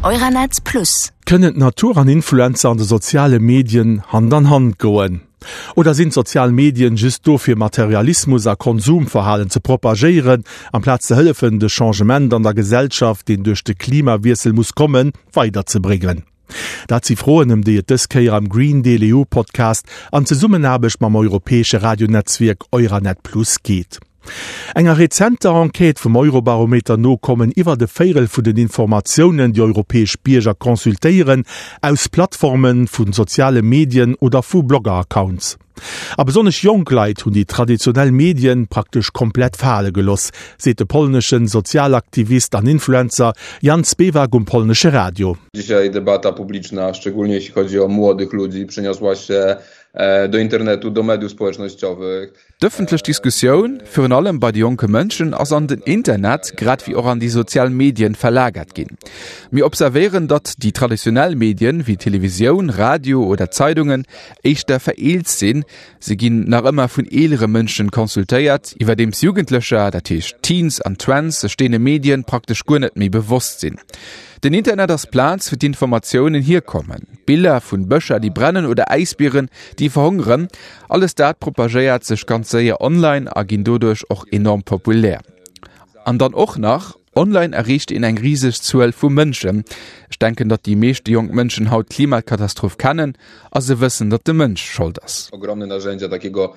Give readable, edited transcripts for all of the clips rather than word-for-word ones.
Euranet Plus. Kënnen d'Natur an Influencer an de soziale Medien Hand an Hand goen? Oder sinn d'sozial Medien just do fir Materialismus a Konsumverhalen ze propagéieren, amplaz ze hëllefen de Changement an der Gesellschaft, deen duerch de Klimawiessel muss kommen, weiderzebréngen? Dat si Froen, ëm déi et dës Kéier am Green Deal EU Podcast an Zesummenaarbecht mam europäesche Radionetzwierk Euranet Plus geet. Enger rezenter Enquête vum Eurobarometer no kommen iwwert e Véirel vun den Informatiounen, déi europäesch Bierger consultéieren, aus Plattforme vu soziale Medien oder vu Blogger-Accounts. A besonnesch jonk Leit hunn déi traditionell Medien praktesch komplett fale geloss, seet de polneschen Sozialaktivist an Influencer Jan Spewak um polnesche Radio. Dzisiaj debata publiczna, szczególnie jeśli chodzi o młodych ludzi, przeniosła się do internetu, do mediów społecznościowych. D'ëffentlech Diskussioun, virun allem bei de jonke Mënschen, ass an den Internet, grad wéi och an déi sozial Medien verlagert ginn. Mir observéieren, datt déi traditionell Medien, wéi Televisioun, Radio oder Zeidungen, éischter vereelzt sinn. Se ginn nach ëmmer vun eelere Mënschen consultéiert, iwwerdeems Jugendlecher, dat heescht Teens an Twents, sech deene Medien praktesch guer net méi bewosst sinn. Den Internet ass d'Plaz, wou d'Informatiounen hierkommen. Biller vun Bëscher, déi brennen oder Äisbieren, déi verhongeren, Alles dat propagéiert sech ganz séier online a ginn doduerch och enorm populär. An dann och nach, online erreecht een eng riseg Zuel vu Mënschen. Ech denken, datt déi meeschte jonk Mënschen haut d'Klimakatastroph kennen a se wëssen, datt de Mënsch Schold ass. Ogromne narzędzia takiego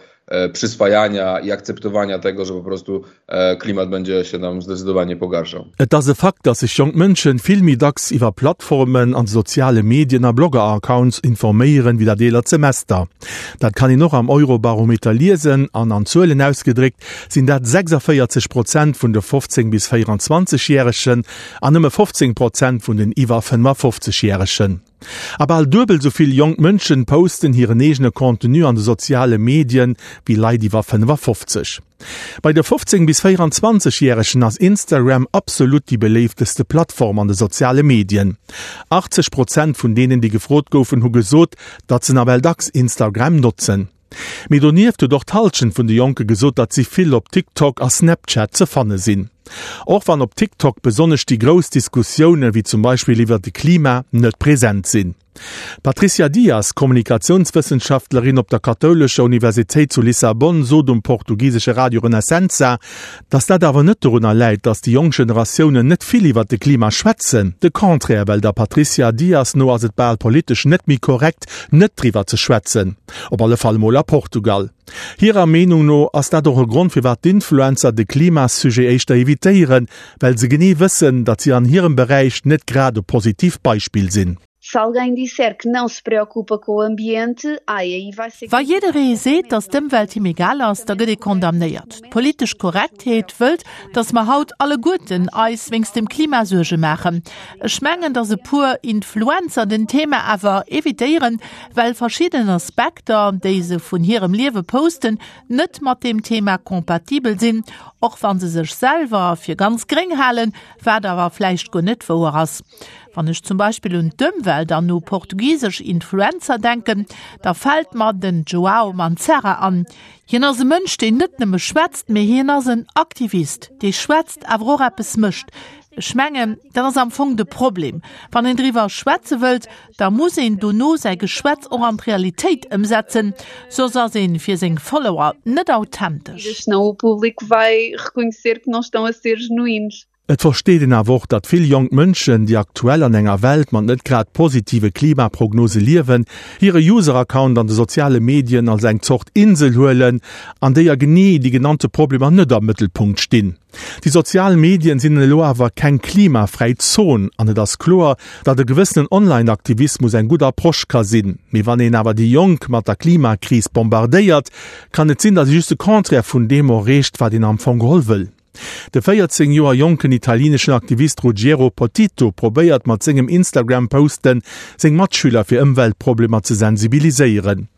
przyswajania i akceptowania tego, że po prostu Klimat będzie się nam zdecydowanie pogarszał. Et ass e Fakt, datt sech jonk Mënschen vill méi dacks iwwer Plattformen an de soziale Medien a Blogger-Accounts informéieren, wéi dat eelert Semester. Dat kann een och am Eurobarometer liesen an an Zuelen ausgedréckt sinn dat 46 Prozent vun de 15 bis 24 Järegen an nëmme 15 Prozent vun den iwwer 55 Järegen. A bal duebel sou vill jonk Mënschen posten hiren eegene Contenu an de soziale Medien wéi Leit iwwer 55. Bei de 15 bis 24 Järegen ass Instagram absolut déi beléifteste Plattform an de soziale Medien. 80 Prozent vun deenen, déi gefrot goufen, hu gesot, datt se nawell dacks Instagram notzen. Mee donieft huet och d'Hallschent vun de Jonke gesot, datt si vill op TikTok a Snapchat ze fanne sinn. Och wann op TikTok besonnesch déi grouss Diskussioune wéi zum Beispill iwwer de Klima net present sinn. D'Patricia Dias, Kommunikatiounswëssenschaftlerin op der kathoulescher Universitéit zu Lissabon, sot um portugisesche Radio Renascença, datt dat awer net dorunner läit, datt déi jonk Generatiounen net vill iwwer de Klima schwätzen. De Contraire, well der Patricia Dias no ass et bal politesch net méi korrekt, net driwwer ze schwätzen. Op alle Fall emol a Portugal. Hirer Meenung no ass dat och e Grond firwat d'Influencer de Klimasujet éischter evitéieren, well se genee wëssen, datt si an hirem Beräich net grad e positiivt Beispill sinn. Se alguém disser que não se preocupa com o ambiente, ai, aí vai ser. Wa jidderee seet, datt d'Ëmwelt him egal ass, da gëtt ee condamnéiert. D'politesch Korrektheet wëllt, datt mer haut alleguerten eis wéinst dem Klima Suerge maachen. Ech mengen, datt e puer Influencer den Thema awer evitéieren, well verschidden Aspekter, déi se vun hirem Liewe posten, net mat deem Thema kompatibel sinn, och wa se sech selwer fir ganz gréng halen, wat awer vläicht guer net wouer ass. Wann ech zum Beispill un d'Ëmwelt an u portugisesch Influencer denken, da fält mer den Joao Manzarra an. Hien ass e Mënsch, deen net nëmme schwätzt, mee hien ass en Aktivist, dee schwätzt, awer och eppes mécht. Ech mengen, dat ass am Fong de Problem. Wann een driwwer schwätze wëllt, da muss een dono säi Geschwätz och an d'Realitéit ëmsetzen, soss ass een fir seng Follower net authentesch. Senão o público vai reconhecer que não estão a ser genuínos. Et versteet een awer och, datt vill jonk Mënschen, déi aktuell an enger Welt mat net grad positive Klimaprognose liewen, hire User-Account an de soziale Medien als eng Zort Insel huelen, an déier genee déi genannte Problemer net am Mëttelpunkt stinn. Déi sozial Medien sinn elo awer keng klimafräi Zon an et ass kloer, datt e gewëssenen Online-Aktivismus eng gutt Approche ka sinn. Mee wann een awer déi Jonk mat der Klimakris bombardéiert, kann et sinn, datt ee just de Contraire vun deem erreecht, wat een am Fong geholl wëll. De 14 Joer jonken italieneschen Aktivist Ruggiero Potito probéiert mat sengem Instagram-Posten seng Matschüler fir Ëmweltproblemer ze sensibiliséieren.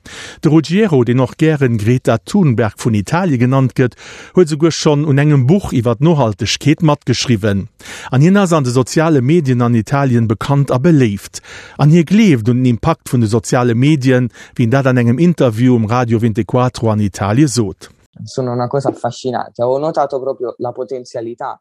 De Ruggiero, deen och gären Greta Thunberg vun Italie genannt gëtt, huet esouguer schonn un engem Buch iwwer d'Nohaltegkeet matgeschriwwen. An hien ass an de soziale Medien an Italien bekannt a beléift. An hie gleeft un den Impakt vun de soziale Medien, wéi en dat an engem Interview um Radio Vintequattro an Italie sot. Sono una cosa affascinante. Avevo notato proprio la potenzialità.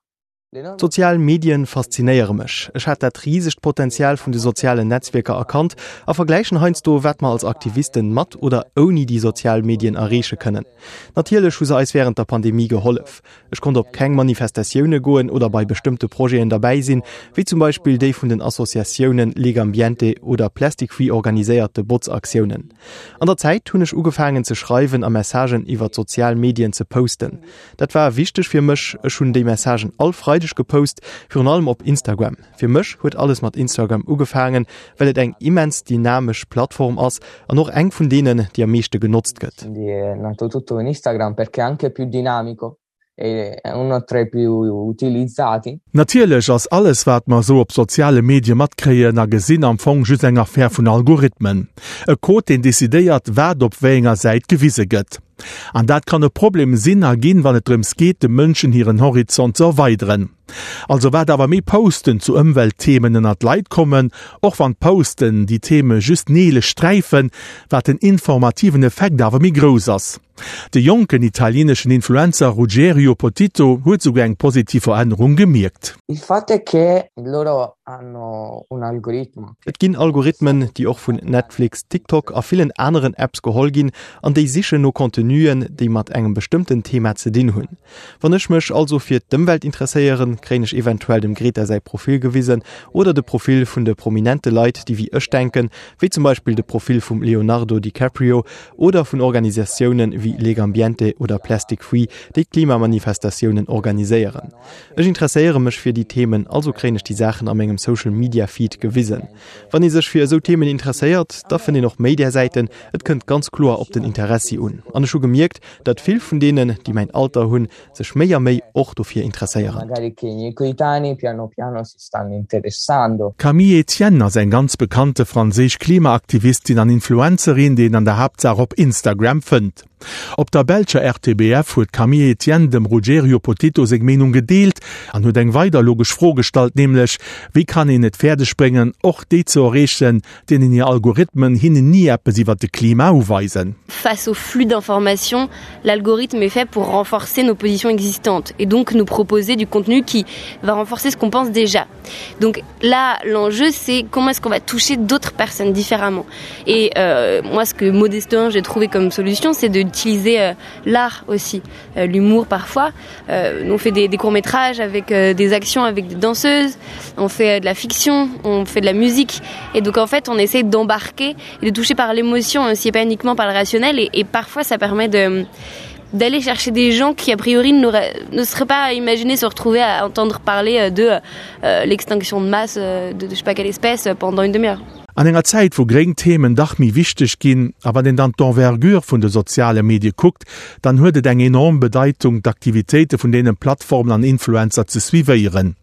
D'sozial Medien faszinéiere mech. Ech hat dat risegt Potenzial vun de sozialen Netzwierker erkannt a vergläichen heiansdo, wat mer als Aktivisten mat oder ouni déi sozial Medien erreeche kënnen. Natierlech hu se eis wärend der Pandemie gehollef. Ech konnt op keng Manifestatioune goen oder bei bestëmmte Projeten derbäi sinn, wéi zum Beispill déi vun den Associatiounen Legambiente oder Plastic Free organiséierte Botzaktiounen. An der Zäit hunn ech ugefaangen ze schreiwen a Messagen iwwer d'sozial Medien ze posten. Dat war wichteg fir mech. Ech hunn déi Messagen all Freideg gepost, virun allem op Instagram. Fir mech huet alles mat Instagram ugefaangen, well et eng immens dynamesch Plattform ass an och eng vun deenen, déi am meeschte genotzt gëtt. Natierlech ass alles, wat mer esou op soziale Medie matkréien a gesinn, am Fong just eng Affär vun Algorithmen. E Code, deen decidéiert, wat op wéi enger Säit gewise gëtt. An dat kann e Problem sinn a ginn, wann et drëms geet, de Mënschen hiren Horizont ze erweideren. Also wat awer méi Posten zu Ëmweltthemen ënnert d'Leit kommen, och wann d'Posten déi Theme just neelech sträifen, wat den informativen Effekt awer méi grouss ass. De jonken italieneschen Influencer Ruggerio Potito huet souguer eng positiv Verännerung gemierkt. Il fatto è che loro hanno un algoritmo. Et ginn Algorithmen, déi och vun Netflix, TikTok a villen aneren Apps geholl ginn an déi sichen no Contenuen, déi mat engem bestëmmten Thema ze dinn hunn. Wann ech mech also fir d'Ëmwelt interesséieren, kréien ech eventuell dem Greta säi Profil gewisen oder de Profil vun de prominente Leit, déi wéi ech denken, wéi zum Beispill de Profil vum Leonardo DiCaprio oder vun Organisatiounen wéi Legambiente oder Plastic Free, déi Klimamanifestatiounen organiséieren. Ech interesséiere mech fir déi Themen, also kréien ech déi Saachen a mengem Social Media Feed gewisen. Wann ee sech fir esou Themen interesséiert, da fënnt een och méi där Säiten. Et kënnt ganz kloer op den Interessi un. An ech hu gemierkt, datt vill vun deenen, déi mäin Alter hunn, sech méi a méi och dofir interesséieren. D'Camille Etienne ass eng ganz bekannte franséisch Klimaaktivistin an Influencerin, déi een an der Haaptsaach op Instagram fënnt. Op der belscher RTBF huet d'Camille Etienne dem Ruggerio Potito seng Meenung gedeelt an huet eng weider logesch Fro gestallt, nämlech, Wéi kann een et fäerdeg bréngen, och déi ze erreechen, deenen hir Algorithmen hinnen ni eppes iwwer de Klima uweisen? Face au flux d'informations, l'algorithme est fait pour renforcer nos positions existantes et donc nous proposer du contenu qui va renforcer ce qu'on pense déjà. Donc là, l'enjeu, c'est comment est-ce qu'on va toucher d'autres personnes différemment. Et euh, moi, ce que modestement j'ai trouvé comme solution, c'est d'utiliser euh, l'art aussi, euh, l'humour parfois. Euh, on fait des, des courts-métrages avec euh, des actions avec des danseuses, on fait euh, de la fiction, on fait de la musique. Et donc en fait, on essaie d'embarquer et de toucher par l'émotion, aussi pas uniquement par le rationnel. Et, et parfois, ça permet de d'aller chercher des gens qui a priori ne seraient pas imaginé se retrouver à entendre parler euh, de euh, l'extinction de masse euh, de, de je sais pas quelle espèce pendant une demi-heure. An enger Zäit, wou gréng Themen dach méi wichteg ginn, a wann een dann d'Envergure vun de soziale Medie kuckt, dann huet et eng enorm Bedeitung, d'Aktivitéite vun deene Plattformen an Influencer ze suivéieren.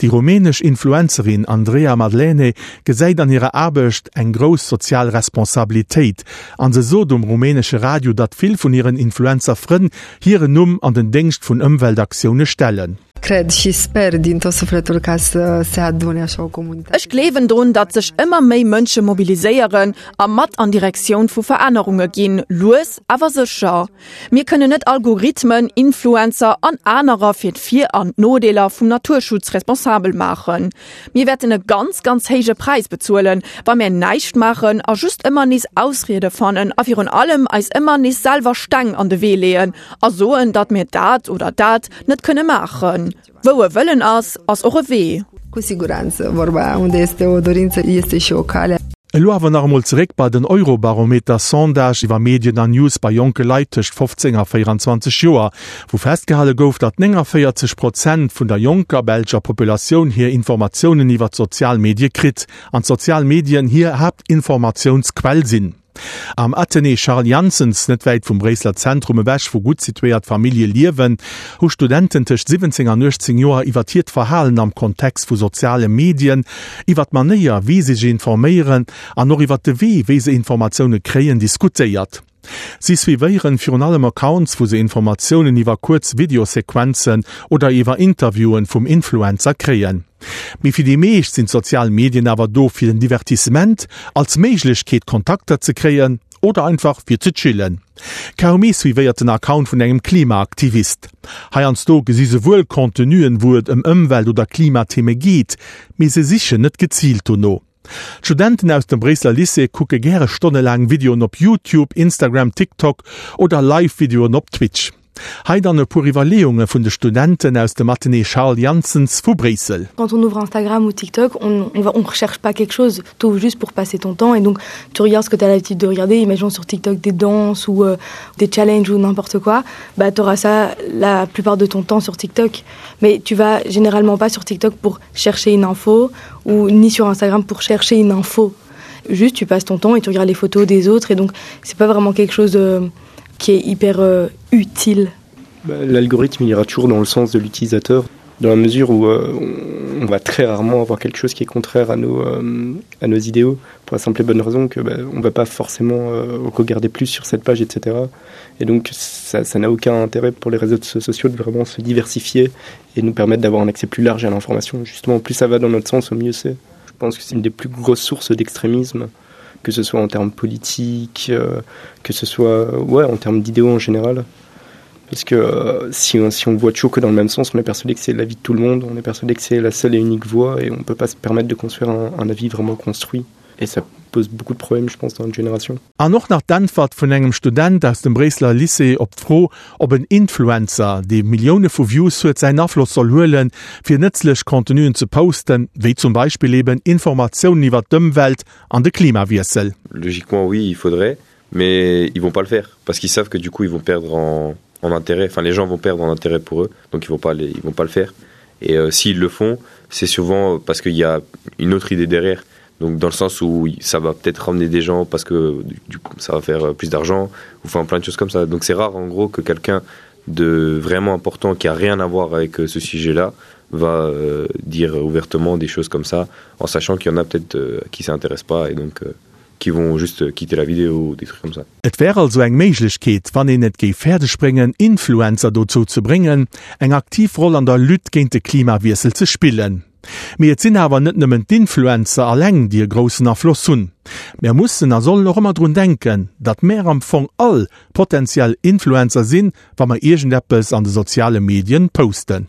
Déi rumänesch Influencerin Andreea Madlene gesäit an hirer Aarbecht eng grouss sozial Responsabilitéit an se sot um rumänesche Radio, datt vill vun hiren Influencer-Frënn hiren Numm an den Déngscht vun Ëmweltaktioune stellen. Cred și sper din tot sufletul ca să se adune așa o comunitate. Ech gleewen drun, datt sech ëmmer méi Mënsche mobiliséieren a mat an Direktioun vu Verännerunge ginn, lues awer sécher. Mir kënnen net Algorithmen, Influencer an anerer fir d'Vir an d'Nodeeler vum Naturschutz responsabel maachen. Mir wäerten e ganz, ganz héije Präis bezuelen, wa mär näischt maachen a just ëmmer nees Ausriede fannen a virun allem eis ëmmer nees selwer Steng an de Wee leeën a soen, datt mir dat oder dat net kënne maachen. Wou e Wëllen ass, ass och e Wee. Cu siguranță, vorba aia, unde este o dorință, este și o cale. Elo awer nach emol zeréck bei den Eurobarometer-Sondage iwwer Medien an News bei jonke Leit tëscht 15 a 24 Joer, wou festgehale gouf, datt 49 Prozent vun der jonker belscher Populatioun hir Informatiounen iwwer d'sozial Medie kritt an d'sozial Medien hir Haaptinformatiounsquell sinn. Am Athenée Charles Janssens, net wäit vum Bréisseler Zentrum ewech, wou gutt situéiert Famillje liewen, hu Studenten tëscht 17 an 18 Joer iwwer hiert Verhalen am Kontext vu soziale Medien, iwwer d'Manéier, wéi se sech informéieren an och iwwer de Wee, wéi se Informatioune kréien, diskutéiert. Si suivéieren virun allem Accounts, wou se Informatiounen iwwer kuerz Videosequenzen oder iwwer Interviewen vum Influencer kréien. Mee fir déi meescht sinn d'sozial Medien awer do fir den Divertissement, als Méiglechkeet Kontakter ze kréien. oder einfach fir ze chillen. Kaum ee suivéiert den Account vun engem Klimaaktivist. Heiansdo gesi se wuel Contenuen, wou et ëm Ëmwelt oder Klimatheme geet, mee se sichen net geziilt dono. D'Studenten aus dem Bréisseler Lycée kucke gäre stonnelaang Videoen op YouTube, Instagram, TikTok oder Live-Videoen op Twitch. Hei dann e puer Iwwerleeunge vun de Studenten aus dem Athenée Charles Janssens vu Bréissel. Quand on ouvre Instagram ou TikTok, on, on, va, on recherche pas quelque chose, tu ouvres juste pour passer ton temps et donc tu regardes ce que tu as l'habitude de regarder, imaginons sur TikTok des danses ou euh, des challenges ou n'importe quoi, bah tu auras ça la plupart de ton temps sur TikTok. Mais tu vas généralement pas sur TikTok pour chercher une info ou ni sur Instagram pour chercher une info. Juste tu passes ton temps et tu regardes les photos des autres et donc c'est pas vraiment quelque chose de euh, qui est hyper euh, utile. L'algorithme il ira toujours dans le sens de l'utilisateur dans la mesure où euh, on va très rarement avoir quelque chose qui est contraire à nos, euh, à nos idéaux pour la simple et bonne raison que bah, on va pas forcément euh, regarder plus sur cette page etc et donc ça n'a aucun intérêt pour les réseaux sociaux de vraiment se diversifier et nous permettre d'avoir un accès plus large à l'information justement plus ça va dans notre sens au mieux c'est je pense que c'est une des plus grosses sources d'extrémisme que ce soit en termes politiques euh, que ce soit ouais en termes d'idéaux en général parce que euh, si on, si on voit toujours que dans le même sens on est persuadé que c'est la vie de tout le monde on est persuadé que c'est la seule et unique voie et on peut pas se permettre de construire un, un avis vraiment construit et ça pose beaucoup de problèmes je pense dans une génération An och nach d'Äntwert vun engem Student aus dem Bréisseler Lycée op d'Fro, ob en Influencer, dee Millioune vu Views huet, säin Afloss soll huelen, fir nëtzlech Contenuen ze posten, wéi zum Beispill eben Informatiounen iwwer d'Ëmwelt an de Klimawiessel. Logiquement oui, il faudrait, mais ils vont pas le faire parce qu'ils savent que du coup ils vont perdre en, en intérêt, enfin les gens vont perdre en intérêt pour eux, donc ils vont pas les, ils vont pas le faire. Et euh, s'ils le font, c'est souvent parce qu'il y a une autre idée derrière. Donc dans le sens où ça va peut-être ramener des gens parce que du coup ça va faire euh, plus d'argent ou enfin plein de choses comme ça. Donc c'est rare en gros que quelqu'un de vraiment important qui a rien à voir avec euh, ce sujet-là va euh, dire ouvertement des choses comme ça en sachant qu'il y en a peut-être euh, qui s'intéressent pas et donc euh, qui vont juste quitter la vidéo ou des trucs comme ça. Et wär also eng Méiglechkeet, wann een et géif fäerdeg bréngen, Influencer dozou ze bréngen, eng aktiv Roll an der Lutte géint de Klimawiessel ze spillen. Mee et sinn awer net nëmmen d'Influencer alleng, déi e groussen Afloss hunn. Mär mussen a sollen och ëmmer drun denken, datt mär am Fong all potentiell Influencer sinn, wa mer iergendeppes an de soziale Medien posten.